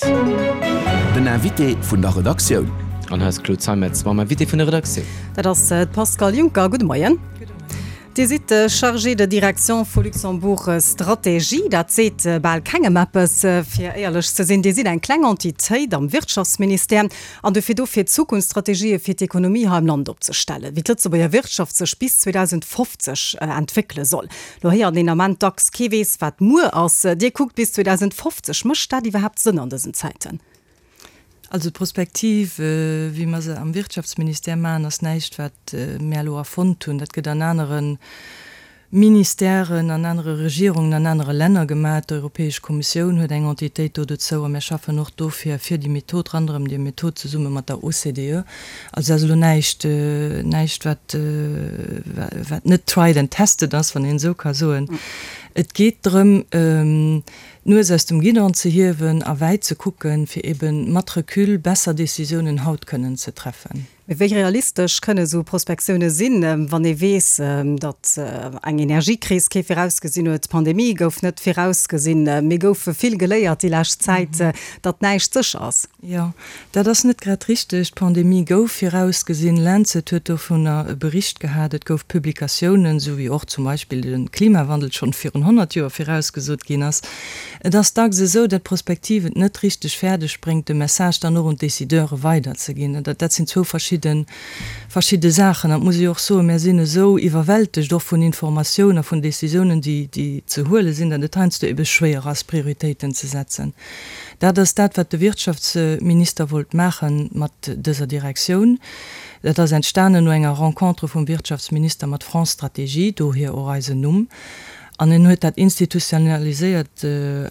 Den Invité vun der Redaktioun. An hei ass d'Claude Zeimetz mam Invité vun der Redaktioun. Dat ass d'Pascale Juncker. Gudde Moien. Dir sidd Chargée de direction vu Luxembourg Stratégie. Dat seet bal kengem eppes, fir éierlech ze sinn. Dir sidd eng kleng Entitéit am Wirtschaftsministère an dofir do, fir Zukunftsstrategië fir d'Ekonomie hei am Land opzestellen, wéi d'Lëtzebuerger Wirtschaft sech bis 2050 entwéckele soll. Lo héiert een Ament dacks, kee weess, wat muer ass. Dir kuckt bis 2050. Mécht dat iwwerhaapt Sënn an dësen Zäiten? Also d'Prospektiv, wéi mer se am Wirtschaftsministère maachen, ass näischt, wat mär elo erfonnt hunn. Dat gëtt an anere Ministèren, an anere Regierungen, an anere Länner gemaach. D'Europäesch Kommissioun huet eng Entitéit do dozou a mär schaffen och dofir fir déi Method, ronderëm déi Method zesumme mat der OCDE. Also dat ass elo näischt, näischt wat, wat net tried and tested ass, wann een esou ka soen. Et geet drëm, d'Nues aus dem Guidon ze hiewen a wäit ze kucken, fir eben mat Recul besser Décisiounen haut kënnen ze treffen. Mee wéi realistesch kënne esou Prospektioune sinn, wann ee weess, datt eng Energiekris kee virausgesinn huet, d'Pandemie gouf net virausgesinn, mir goufe vill geléiert déi lescht Zäit, datt näischt sécher ass? Jo, dat ass net grad richteg. D'Pandemie gouf virausgesinn, Lancet huet dovunner e Bericht gehat, et gouf Publikatiounen, esou wéi och zum Beispill de Klimawandel schonn virun 100 Joer virausgesot ginn ass. Et ass dacks esou, datt d'Prospektiv et net richteg fäerdeg bréngt, de Message dann och un d'Decideure weiderzeginn. Dat sinn zwou verschidde verschidde Saachen. An et muss ee jo och soen, mär sinn esou iwwerwältegt och vun Informatioun a vun Decisiounen, déi déi ze huele sinn, datt et heiansdo ebe schwéier ass, Prioritéiten ze setzen. Dat ass dat, wat de Wirtschaftsminister wollt maache mat dëser Direktioun. Dat ass entstanen no enger Rencontre vum Wirtschaftsminister mat France Stratégie, dohier och eisen Numm. An en huet dat institutionaliséiert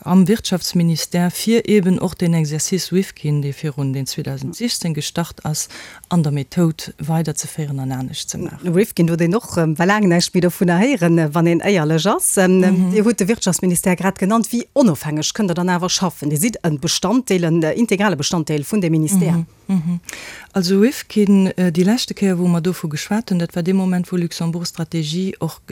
am Wirtschaftsministère, fir eeben och deen Exercice Rifkin, dee virun, deen 2016 gestart ass, an der Methoud weiderzeféieren an anescht ze maachen. Rifkin huet een och well laang näischt méi dovunner héieren, wann een éierlech ass. Dir hutt de Wirtschaftsministère grad genannt. Wéi onofhängeg kënnt Der dann awer schaffen? Dir sidd e Bestanddeel, en integrale Bestanddeel vun deem Ministère. Also Rifkin, déi leschte Kéier wou mer dovu geschwat hunn, dat war dee Moment wou Luxembourg Stratégie och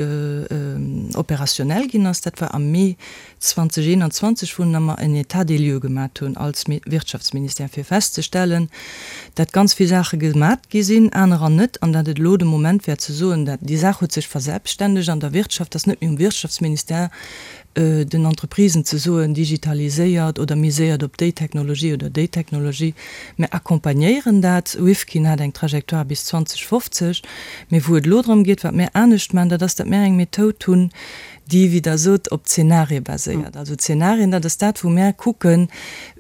opérationnel ginn ass, dat war am Mee 2021, wou mer en État des lieux gemat hunn als Wirtschaftsministère, fir festzestellen, dat ganz vill Saache gemat gi sinn, anerer net, an dat et elo de Moment wär ze soen, dat déi Saach huet sech verselbstständegt an der Wirtschaft, dass net méi um Wirtschaftsministère den Entreprisen ze soen, digitaliséiert oder miséiert op déi Technologie oder déi Technologie. Mir accompagnéieren dat. Rifkin hat eng Trajectoire bis 2050, mee wou et elo drëm geet, wat mir anescht maachen, dat ass, dat mir eng Methoud hunn, déi, wéi Der sot, op Zenarie baséiert. Also Zenarien, dat ass dat, wou mär kucken,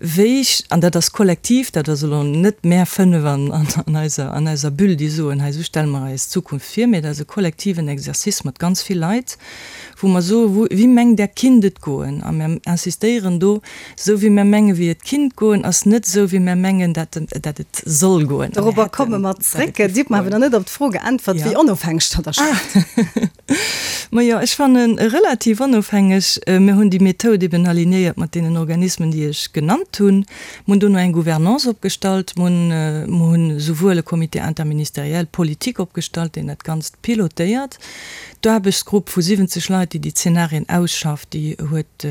wéi, an dat ass kollektiv, dat ass elo net mär fënnef an eiser, an eiser Bulle, déi soen, hei esou stelle mer eis d'Zukunft vir, mee dat ass e kollektiven Exercice mat ganz vill Leit, wou mer soen, wou, wéi mengt Der kinnt et goen? A mär insistéieren do, esou wéi mär menge wéi et kinnt goen, ass net esou wéi mär mengen, dat, dat et soll goen. Dorobber komme mer zréck. Dir hutt mer awer nach net op d'Fro geäntwert, wéi onofhängeg Der da schafft. Majo, ech fannen relativ onofhängeg. Mir hunn déi Methoud eben alignéiert mat deenen Organismen, déi ech genannt hunn. Mir hunn dono eng Gouvernance opgestallt. Mir hunn, mir hunn esouwuel e Comité interministériel politique opgestallt, deen dat Ganzt pilotéiert. D'Aarbechtsgrupp vu 70 Leit, déi déi Zenarien ausschafft, déi huet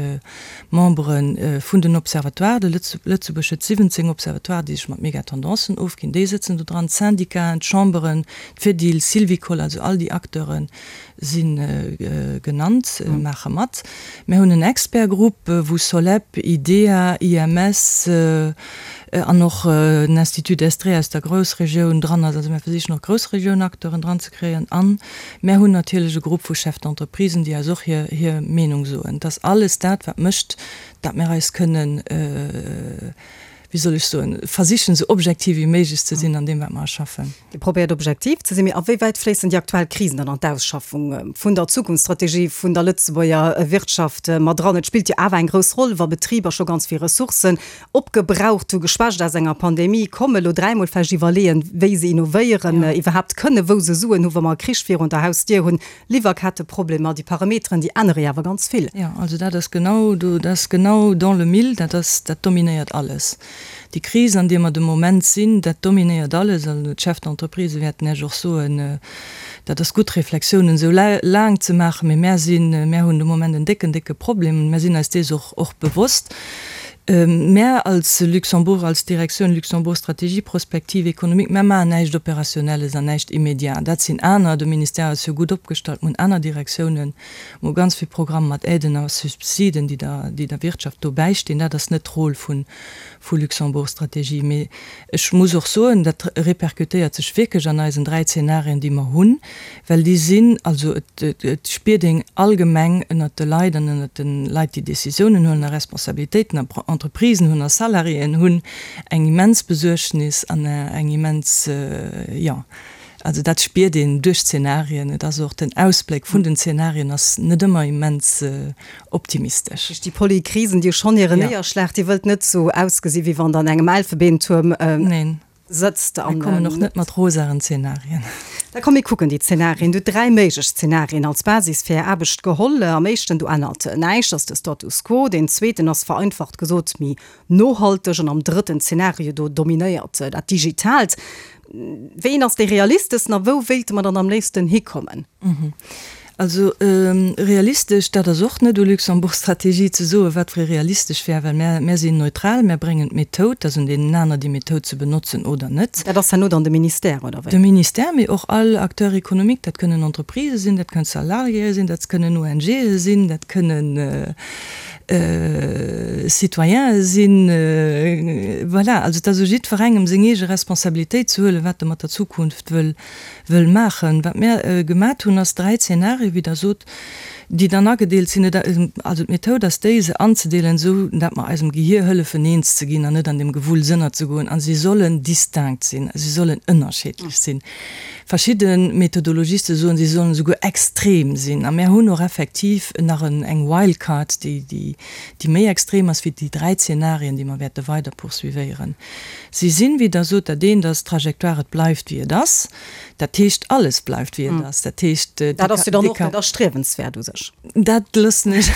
Membere vun den Observatoires. De Lëtzebuerg huet 17 Observatoires, déi sech mat Megatendancen ofginn. Déi sëtzen do dran, d'Syndicaten, d'Chamberen, d'Fedil, Sylvicol, also all déi Acteure si genannt, maache mat. Mir hunn en Expertgrupp, wou Soleb, IDEA, IMS an och den Institut Estrée aus der Groussregioun dran ass. Also mir versichen och Groussregiounacteuren dran ze kréien. An mär hunn natierlech e Grupp vu Chefs d'entreprisen, déi eis och hir Meenung soen. Et ass alles dat, wat mécht, datt mir eis kënnen, wéi soll ech soen, versichen esou objektiv wéi méiglech ze sinn an deem wat mer erschaffen. Dir probéiert objektiv ze sinn, mee a wéi wäit fléissen déi aktuell Krisen dann an d'Ausschaffung vun der Zukunftsstrategie vun der Lëtzebuerger Wirtschaft mat eran? Et spillt jo awer eng grouss Roll, wa Betriber scho ganz vill Ressourcen opgebraucht hu, geschwächt aus enger Pandemie kommen, elo dräimol vläicht iwwerleeën, wéi se innovéieren iwwerhaapt kënnen, wou se Suen hu wa mer e Krich virun der Hausdier hunn, Liwwerketteproblemer, déi Parameteren, déi ännere jo awer ganz vill. Jo, also dat ass genau do, dat ass genau dans le mille, dat ass, dat dominéiert alles. Déi Kris, an deer mer de Moment sinn, dat dominéiert alles. Also d'Chefs d'entreprise wäerten Iech och soen, dat ass gutt, Reflexiounen esou laang ze maachen, mee mär sinn, mär hunn de Moment en décken, décke Problem. Mär sinn eis dees och, och bewosst. Mär als Luxembourg, als Direktioun Luxembourg Stratégie Prospective Économique, mär maachen näischt Opérationnelles an näischt Immédiat. Dat sinn aner. De Ministère ass jo gutt opgestallt. Mir hunn aner Direktiounen, mir hu ganz vill Programme mat Aiden a Subsiden, déi der, déi der Wirtschaft do bäistinn. Dat ass net d'Rôle vu vu Luxembourg Stratégie. Mee ech muss och soen, dat répercutéiert sech wierklech an eisen 3 Zeenarien, déi mer hunn, well déi sinn, also et et spiert een allgemeng ënnert de Leit an ënnert de Leit, déi Décisiounen huelen a Responsabilitéiten a Entreprisen hunn a Salariéen hunn, eng immens Besuergnis an eng immens, jo, also dat spiert een duerch d'Zeenarien. Et ass och den Ausbléck vun den Zeenarien ass net ëmmer immens optimistesch. Duerch déi Polykrisen, déi jo schonn hiren Néierschlag, Dir wëllt net esou ausgesi wéi wann Der an engem Elfebeentuerm sëtzt. Mir kommen och net mat rosaren Zenarien. Da komm mir kucken déi Zenarien. Dir hutt 3 méiglech Zenarien als Basis fir Är Aarbecht geholl. Am éischten, do ännert näischt, ass de Status quo. Deen zweeten ass vereinfacht gesot méi nohalteg an am drëtten Zenario, do dominéiert dat Digitaalt. Wéi een ass dee realisteschsten a wou wéilte mer dann am léifsten hikommen? Also realistesch, dat ass och net u Luxembourg Strategie ze soen, wat fir ee realistesch wär, well mär, mär sinn neutral, mär bréngen d'Methoud, dat ass un deenen aner déi Methoud ze benotzen oder net. Dat ass herno dann de Ministère, oder wéi? De Ministère, mee och all Acteur économique, dat kënnen Entreprisë sinn, dat kënnen Salariéë sinn, dat kënnen ONGe sinn, dat kënnen Citoyene sinn. Voilà, also et ass u jiddwerengem seng eege Responsabilitéit ze huelen, wat e mat der Zukunft wëll wëll maachen. Wat mär gemat hunn, ass 3 Zeenarien, wéi Der sot, déi dann agedeelt sinn. Et, also d'Methoud ass déi, se anzedeelen, esou dat mer eisem Gehier hëllefen, eens ze ginn an net an deem Gewulls ënnerzegoen. A si sollen distinct sinn, si sollen ënnerscheedlech sinn. Verschidde Methodologiste soen, si sollen esouguer extrem sinn. A mär hunn och effektiv nach en, eng Wildcard, déi, déi, déi méi extrem ass wéi déi 3 Zeenarien, déi mer wäerte weider poursuivéieren. Si sinn, wéi Der sot, dat eent ass d'Trajectoire, et bleift wéi et ass. Dat heescht, alles bleift wéi et ass. Dat heescht, Dat ass jo dann och net erstriewenswäert u sech. Dat loossen ech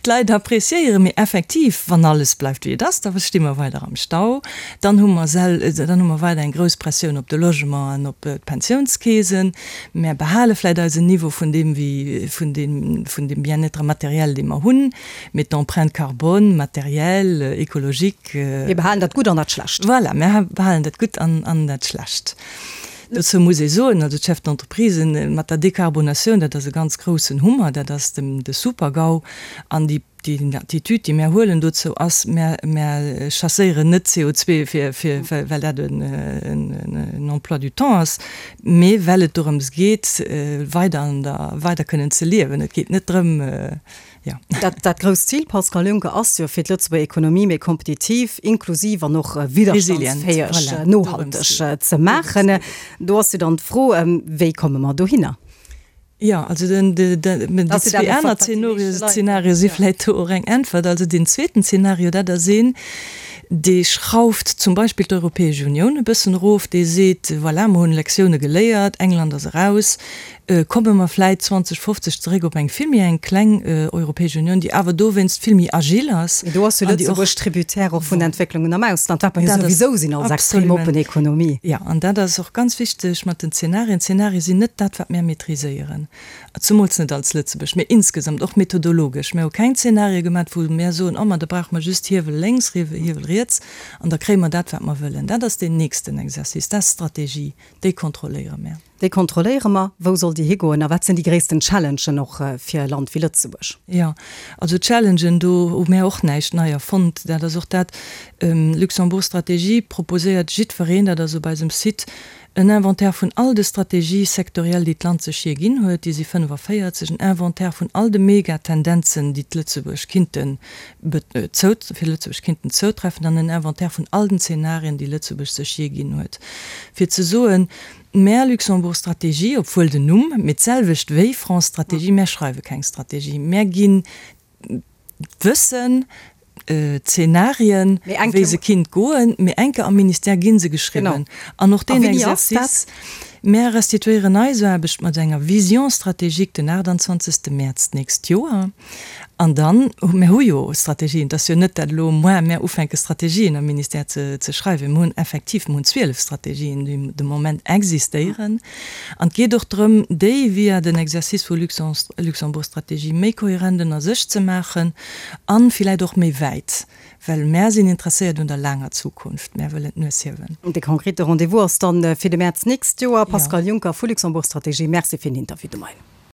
d'Leit appréciéieren. Mee effektiv, wann alles bleift wéi et ass, da sti mer weider am Stau. Dann hu mer sel, dann hu mer weider eng grouss Pressioun op de Logement an op d'Pensiounskeesen. Mär behale vläicht eisen Niveau vun deem, wéi, vun deem, vun deem Bien-être matériel, dee mer hunn. Mee d'Empreinte carbone, matérielle, écologique. Mir behalen dat Gutt an dat Schlecht. Voilà, mir behalen dat Gutt an dat Schlecht. Dozou muss ee soen, also d'Chefs d'entreprisen, mat der Dekarbonatioun, dat ass e ganz groussen Hummer, dat ass de Super-GAU. An déi Attitude, déi mär huelen dozou, ass, mär chasséieren net CO2, fir, well dat en Emploi du temps ass, mee well et dorëms geet, weider, weider kënnen ze liewen. Et geet net drëm, Jo. Dat, dat grousst Zil, Pascal Juncker, ass jo, fir d'Lëtzebuerger Ekonomie méi kompetitiv, inklusiv an och widderstandsfäeg, voilà, nohalteg ze maachen. Do ass jo dann d'Fro, wéi komme mer dohinner? Jo, also den, de, de, déi zwee aner Zenarie si vläicht do och eng Äntwert. Also deen zweeten Zenario, dat ass een, dee schrauft zum Beispill d'Europäesch Unioun e bëssen erof, dee seet, voilà, mer hunn Lektioune geléiert, England ass eraus, Komme mer vläit 2050 zeréck op eng vill méi eng kleng Europäesch Unioun, déi awer dowéinst vill méi agil ass. Mee do ass jo Lëtzebuerg Tributaire och vun Entwécklungen am Ausland, wat mer jo souwisou sinn als extrem oppen Ekonomie. Jo, an dat ass och ganz wichteg mat den Zenarien. D'Zenarie sinn net dat, wat mär maîtriséieren, zemools net als Lëtzebuerg, mee insgesamt och methodologesch. Mär hu keng Zenarie gemat, wou mär soen, oh ma da brauche mer just Hiewel lénks, Hiewel riets an da kréie mer dat, wat mer wëllen. Dat ass deen nächsten Exercice, dat ass d'Strategie, déi kontrolléiere mär. Déi kontrolléiere mer. Wou soll déi higoen a wat sinn déi gréissten Challengen och fir e Land wéi Lëtzebuerg? Jo, also Challengen, do hu mär och näischt nei erfonnt. Dat ass och dat, Luxembourg Stratégie proposéiert jiddwereen, dat ass op eisem Site, en Inventaire vun all de Stratégies sectorielles, déi d'Land sech jee ginn huet, déi si 45, en Inventaire vun all de Megatendenzen, déi d'Lëtzebuerg kinnten fir Lëtzebuerg kinnten zoutreffen, an en Inventaire vun all den Zenarien, déi Lëtzebuerg sech jee ginn huet, fir ze soen, Mär Luxembourg Stratégie, obwuel den Numm, mee d'selwecht wéi France Stratégie, mär schreiwe keng Strategie, mär ginn d'Wëssen, d'Zenarien, wéi se kinnt goen, mee enke am Ministère gi se geschriwwen. An och deen Exercice, mär restituéieren eis Aarbecht mat enger Vision stratégique den 28. Mäerz d'nächst Joer. An dann, mär hu jo Strategien, et ass jo net, dat elo moar mär ufänke Strategien am Ministère ze schreiwen. Mir hunn effektiv, mir hunn 12 Strategien, déi de Moment existéieren. An et geet och drëm, déi via den Exercice vu Luxembourg Strategie méi kohärent ënner sech ze maachen a villäit och méi wäit. Well mär sinn interesséiert un der laanger Zukunft. Mär wëllen d'Nues hiewen. De konkrete Rendez-vous ass dann fir de Mäerz nächst Joer. Pascal Juncker vu Luxembourg Stratégie, Merci fir den Interview de Moien.